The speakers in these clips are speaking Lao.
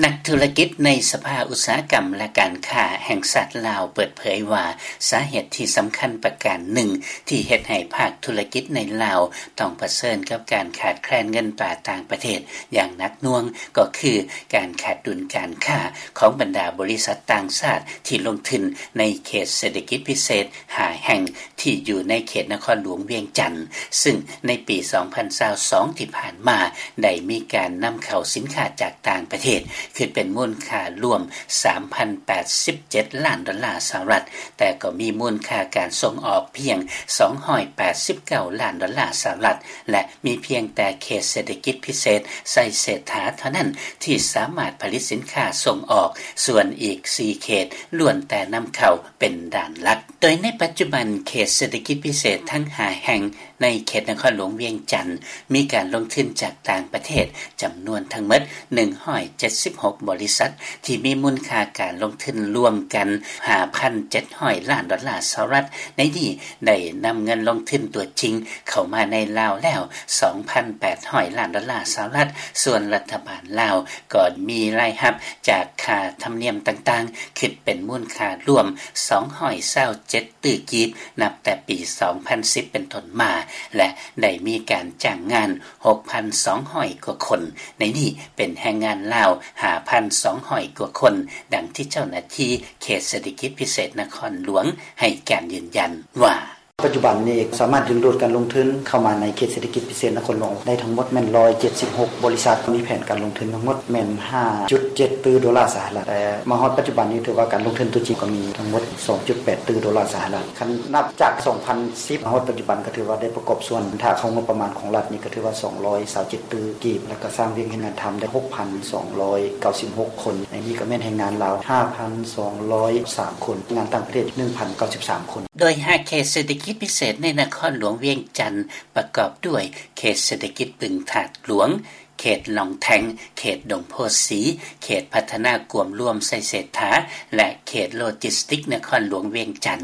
ນັກທຸລະກິດໃນສະພາອຸດສາຫະກຳ ແລະ ການຄ້າແຫ່ງຊາດລາວ ເປີດເຜີຍວ່າ ສາເຫດທີ່ສຳຄັນປະການໜຶ່ງ ທີ່ເຮັດໃຫ້ພາກທຸລະກິດໃນລາວ ຕ້ອງປະເຊີນກັບການຂາດແຄນເງິນຕາຕ່າງປະເທດ ຢ່າງໜັກໜ່ວງ ກໍຄືການຂາດດຸນການຄ້າ ຂອງບັນດາບໍລິສັດຕ່າງຊາດ ທີ່ລົງທຶນໃນເຂດເສດຖະກິດພິເສດຫ້າແຫ່ງ ທີ່ຢູ່ໃນເຂດນະຄອນຫຼວງວຽງຈັນ, ຊຶ່ງໃນປີສອງພັນຊາວສອງທີ່ຜ່ານມາ ໄດ້ມີການນຳເຂົ້າສິນຄ້າຈາກຕ່າງປະເທດ ຄິດເປັນມູນຄ່າລວມສາມພັນແປດສິບເຈັດລ້ານດອນລາສະຫະລັດ, ແຕ່ກໍມີມູນຄ່າການສົ່ງອອກພຽງສອງຮ້ອຍແປດສິບເກົ້າລ້ານດອນລາສະຫະລັດ ແລະ ມີພຽງແຕ່ເຂດເສດຖະກິດພິເສດໄຊເສດຖາເທົ່ານັ້ນ ທີ່ສາມາດຜະລິດສິນຄ້າສົ່ງອອກ, ສ່ວນອີກສີ່ເຂດລ້ວນແຕ່ນຳເຂົ້າເປັນດ້ານຫຼັກ. ໂດຍໃນປັດຈຸບັນ ເຂດເສດຖະກິດພິເສດທັງຫ້າແຫ່ງໃນເຂດນະຄອນຫຼວງວຽງຈັນ ມີການລົງທຶນຈາກຕ່າງປະເທດຈຳນວນທັງໝົດໜຶ່ງຮ້ອຍເຈັດສິບຫົກບໍລິສັດ ທີ່ມີມູນຄ່າການລົງທຶນລວມກັນຫ້າພັນເຈັດຮ້ອຍລ້ານດອນລາສະຫະລັດ. ໃນນີ້ໄດ້ນຳເງິນລົງທຶນຕົວຈິງເຂົ້າມາໃນລາວແລ້ວສອງພັນແປດຮ້ອຍລ້ານດອນລາສະຫະລັດ, ສ່ວນລັດຖະບານລາວກໍມີລາຍຮັບຈາກຄ່າທຳນຽມຕ່າງໆ ຄິດເປັນມູນຄ່າລວມສອງຮ້ອຍຊາວເຈັດຕື້ກີບ ນັບແຕ່ປີສອງພັນສິບເປັນຕົ້ນມາ ແລະ ໄດ້ມີການຈ້າງງານຫົກພັນສອງຮ້ອຍກວ່າຄົນ, ໃນນີ້ເປັນແຮງງານລາວຫ້າພັນສອງຮ້ອຍກວ່າຄົນ, ດັ່ງທີ່ເຈົ້າໜ້າທີ່ເຂດເສດຖະກິດພິເສດນະຄອນຫຼວງໃຫ້ການຢືນຢັນວ່າ ປັດຈຸບັນນີ້ສາມາດດຶງດູດການລົງທຶນເຂົ້າມາໃນເຂດເສດຖະກິດພິເສດນະຄອນຫຼວງໄດ້ທັງໝົດແມ່ນຮ້ອຍເຈັດສິບຫົກບໍລິສັດ, ມີແຜນການລົງທຶນທັງໝົດແມ່ນຫ້າຈຸດເຈັດຕື້ໂດລາສະຫະລັດ, ແຕ່ມາຮອດປັດຈຸບັນນີ້ຖືວ່າການລົງທຶນຕົວຈິງກໍມີທັງໝົດສອງຈຸດແປດຕື້ໂດລາສະຫະລັດ. ຄັນນັບຈາກສອງພັນສິບມາຮອດປັດຈຸບັນ ກໍຖືວ່າໄດ້ປະກອບສ່ວນ ຖ້າເຂົ້າງົບປະມານຂອງລັດນີ້ ກໍຖືວ່າສອງຮ້ອຍຊາວເຈັດຕື້ກີບ ແລ້ວກໍສ້າງວຽກເຮັດງານທຳໄດ້ຫົກພັນສອງຮ້ອຍເກົ້າສິບຫົກຄົນ, ໃນນີ້ກໍແມ່ນແຮງງານລາວຫ້າພັນສອງຮ້ອຍສາມຄົນ, ແຮງງານຕ່າງປະເທດໜຶ່ງພັນເກົ້າສິບສາມຄົນ. ໂດຍຫ້າເຂດເສດຖະກິດພິເສດໃນນະຄອນຫຼວງວຽງຈັນ ປະກອບດ້ວຍເຂດເສດຖະກິດບຶງທາດຫຼວງ, ເຂດຫຼອງແທງ, ເຂດດົງໂພສີ, ເຂດພັດທະນາກວມລວມໄຊເສດຖາ ແລະ ເຂດໂລຈິສຕິກນະຄອນຫຼວງວຽງຈັນ.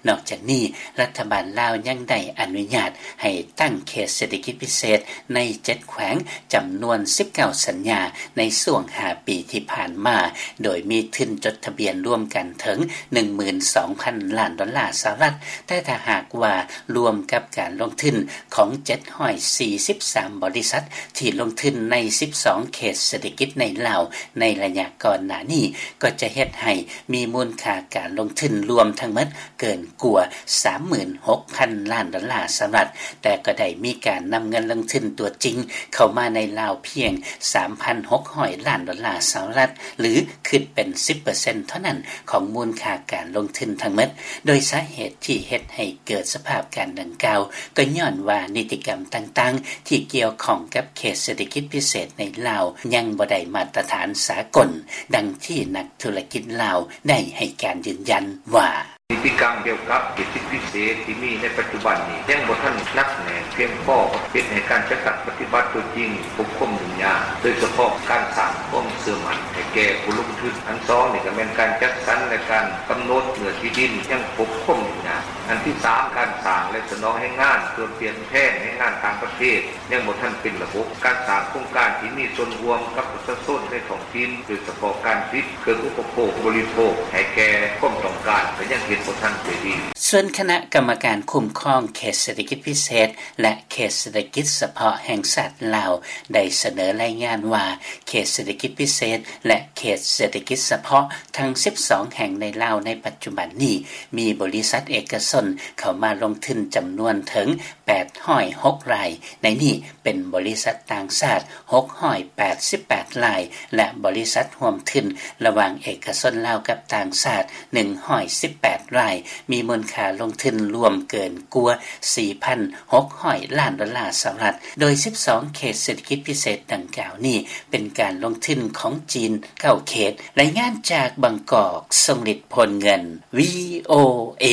ນອກຈາກນີ້, ລັດຖະບານລາວຍັງໄດ້ອະນຸຍາດໃຫ້ຕັ້ງເຂດເສດຖະກິດພິເສດໃນເຈັດແຂວງ ຈຳນວນສິບເກົ້າສັນຍາໃນຊ່ວງຫ້າປີທີ່ຜ່ານມາ, ໂດຍມີທຶນຈົດທະບຽນລວມກັນເຖິງໜຶ່ງໝື່ນສອງພັນລ້ານດອນລາສະຫະລັດ, ແຕ່ຖ້າຫາກວ່າລວມກັບການລົງທຶນຂອງເຈັດຮ້ອຍສີ່ສິບສາມບໍລິສັດທີ່ລົງທຶນໃນສິບສອງເຂດເສດຖະກິດໃນລາວໃນໄລຍະກ່ອນໜ້ານີ້, ກໍຈະເຮັດໃຫ້ມີມູນຄ່າການລົງທຶນລວມທັງໝົດເກີນກວ່າສາມໝື່ນຫົກພັນລ້ານດອນລາສະຫະລັດ, ແຕ່ກໍໄດ້ມີການນຳເງິນລົງທຶນຕົວຈິງເຂົ້າມາໃນລາວພຽງສາມພັນຫົກຮ້ອຍລ້ານດອນລາສະຫະລັດ ຫຼື ຄິດເປັນສິບເປີເຊັນເທົ່ານັ້ນຂອງມູນຄ່າການລົງທຶນທັງໝົດ. ໂດຍສາເຫດທີ່ເຮັດໃຫ້ເກີດສະພາບການດັ່ງກ່າວ ກໍຍ້ອນວ່ານິຕິກຳຕ່າງໆທີ່ກ່ຽວຂ້ອງກັບເຂດເສດຖະກິດພິເສດໃນລາວ ຍັງບໍ່ໄດ້ມາດຕະຖານສາກົນ, ດັ່ງທີ່ນັກທຸລະກິດລາວໄດ້ໃຫ້ການຢືນຢັນວ່າ ນິຕິກຳກ່ຽວກັບເຂດເສດຖະກິດພິເສດທີ່ມີໃນປັດຈຸບັນນີ້ ຍັງບໍ່ທັນໜັກແໜ້ນພຽງພໍ, ເຮັດໃຫ້ການຈັດຕັ້ງປະຕິບັດຕົວຈິງພົບຄວາມຫຍຸ້ງຍາກ, ໂດຍສະເພາະການສ້າງຄວາມເຊື່ອໝັ້ນໃຫ້ແກ່ຜູ້ລົງທຶນ. ອັນສອງນີ້ກໍແມ່ນການຈັດສັນ ແລະ ການກຳນົດເນື້ອທີ່ດິນຍັງພົບຄວາມຫຍຸ້ງຍາກ. ອັນທີສາມ ການສ້າງ ແລະ ສະໜອງແຮງງານ ເພື່ອປ່ຽນແທນແຮງງານຕ່າງປະເທດ ຍັງບໍ່ທັນເປັນລະບົບ. ການສ້າງໂຄງການທີ່ມີສ່ວນຮ່ວມກັບປະຊາຊົນໃນທ້ອງຖິ່ນ, ໂດຍສະເພາະການຜະລິດເຄື່ອງອຸປະໂພກບໍລິໂພກໃຫ້ແກ່ຄວາມຕ້ອງການ ກໍຍັງເຮັດບໍ່ທັນໄດ້ດີ. ສ່ວນຄະນະກຳມະການຄຸ້ມຄອງເຂດເສດຖະກິດພິເສດ ແລະ ເຂດເສດຖະກິດສະເພາະແຫ່ງຊາດລາວ ໄດ້ສະເໜີລາຍງານວ່າ ເຂດເສດຖະກິດພິເສດ ແລະ ເຂດເສດຖະກິດສະເພາະທັງສິບສອງແຫ່ງໃນລາວໃນປັດຈຸບັນນີ້ ມີບໍລິສັດເອກະຊົນເຂົ້າມາລົງທຶນຈຳນວນເຖິງ ແປດຮ້ອຍຫົກລາຍ, ໃນນີ້ເປັນບໍລິສັດຕ່າງຊາດຫົກຮ້ອຍແປດສິບແປດລາຍ ແລະ ບໍລິສັດຮ່ວມທຶນລະຫວ່າງເອກະຊົນລາວກັບຕ່າງຊາດໜຶ່ງຮ້ອຍສິບແປດລາຍ, ມີມູນຄ່າລົງທຶນລວມເກີນກວ່າສີ່ພັນຫົກຮ້ອຍລ້ານດອນລາສະຫະລັດ, ໂດຍສິບສອງເຂດເສດຖະກິດພິເສດດັ່ງກ່າວນີ້ ເປັນການລົງທຶນຂອງຈີນເກົ້າເຂດ. ລາຍງານຈາກບາງກອກ, ຊົງລິດ ໂພນເງິນ, ວີໂອເອ.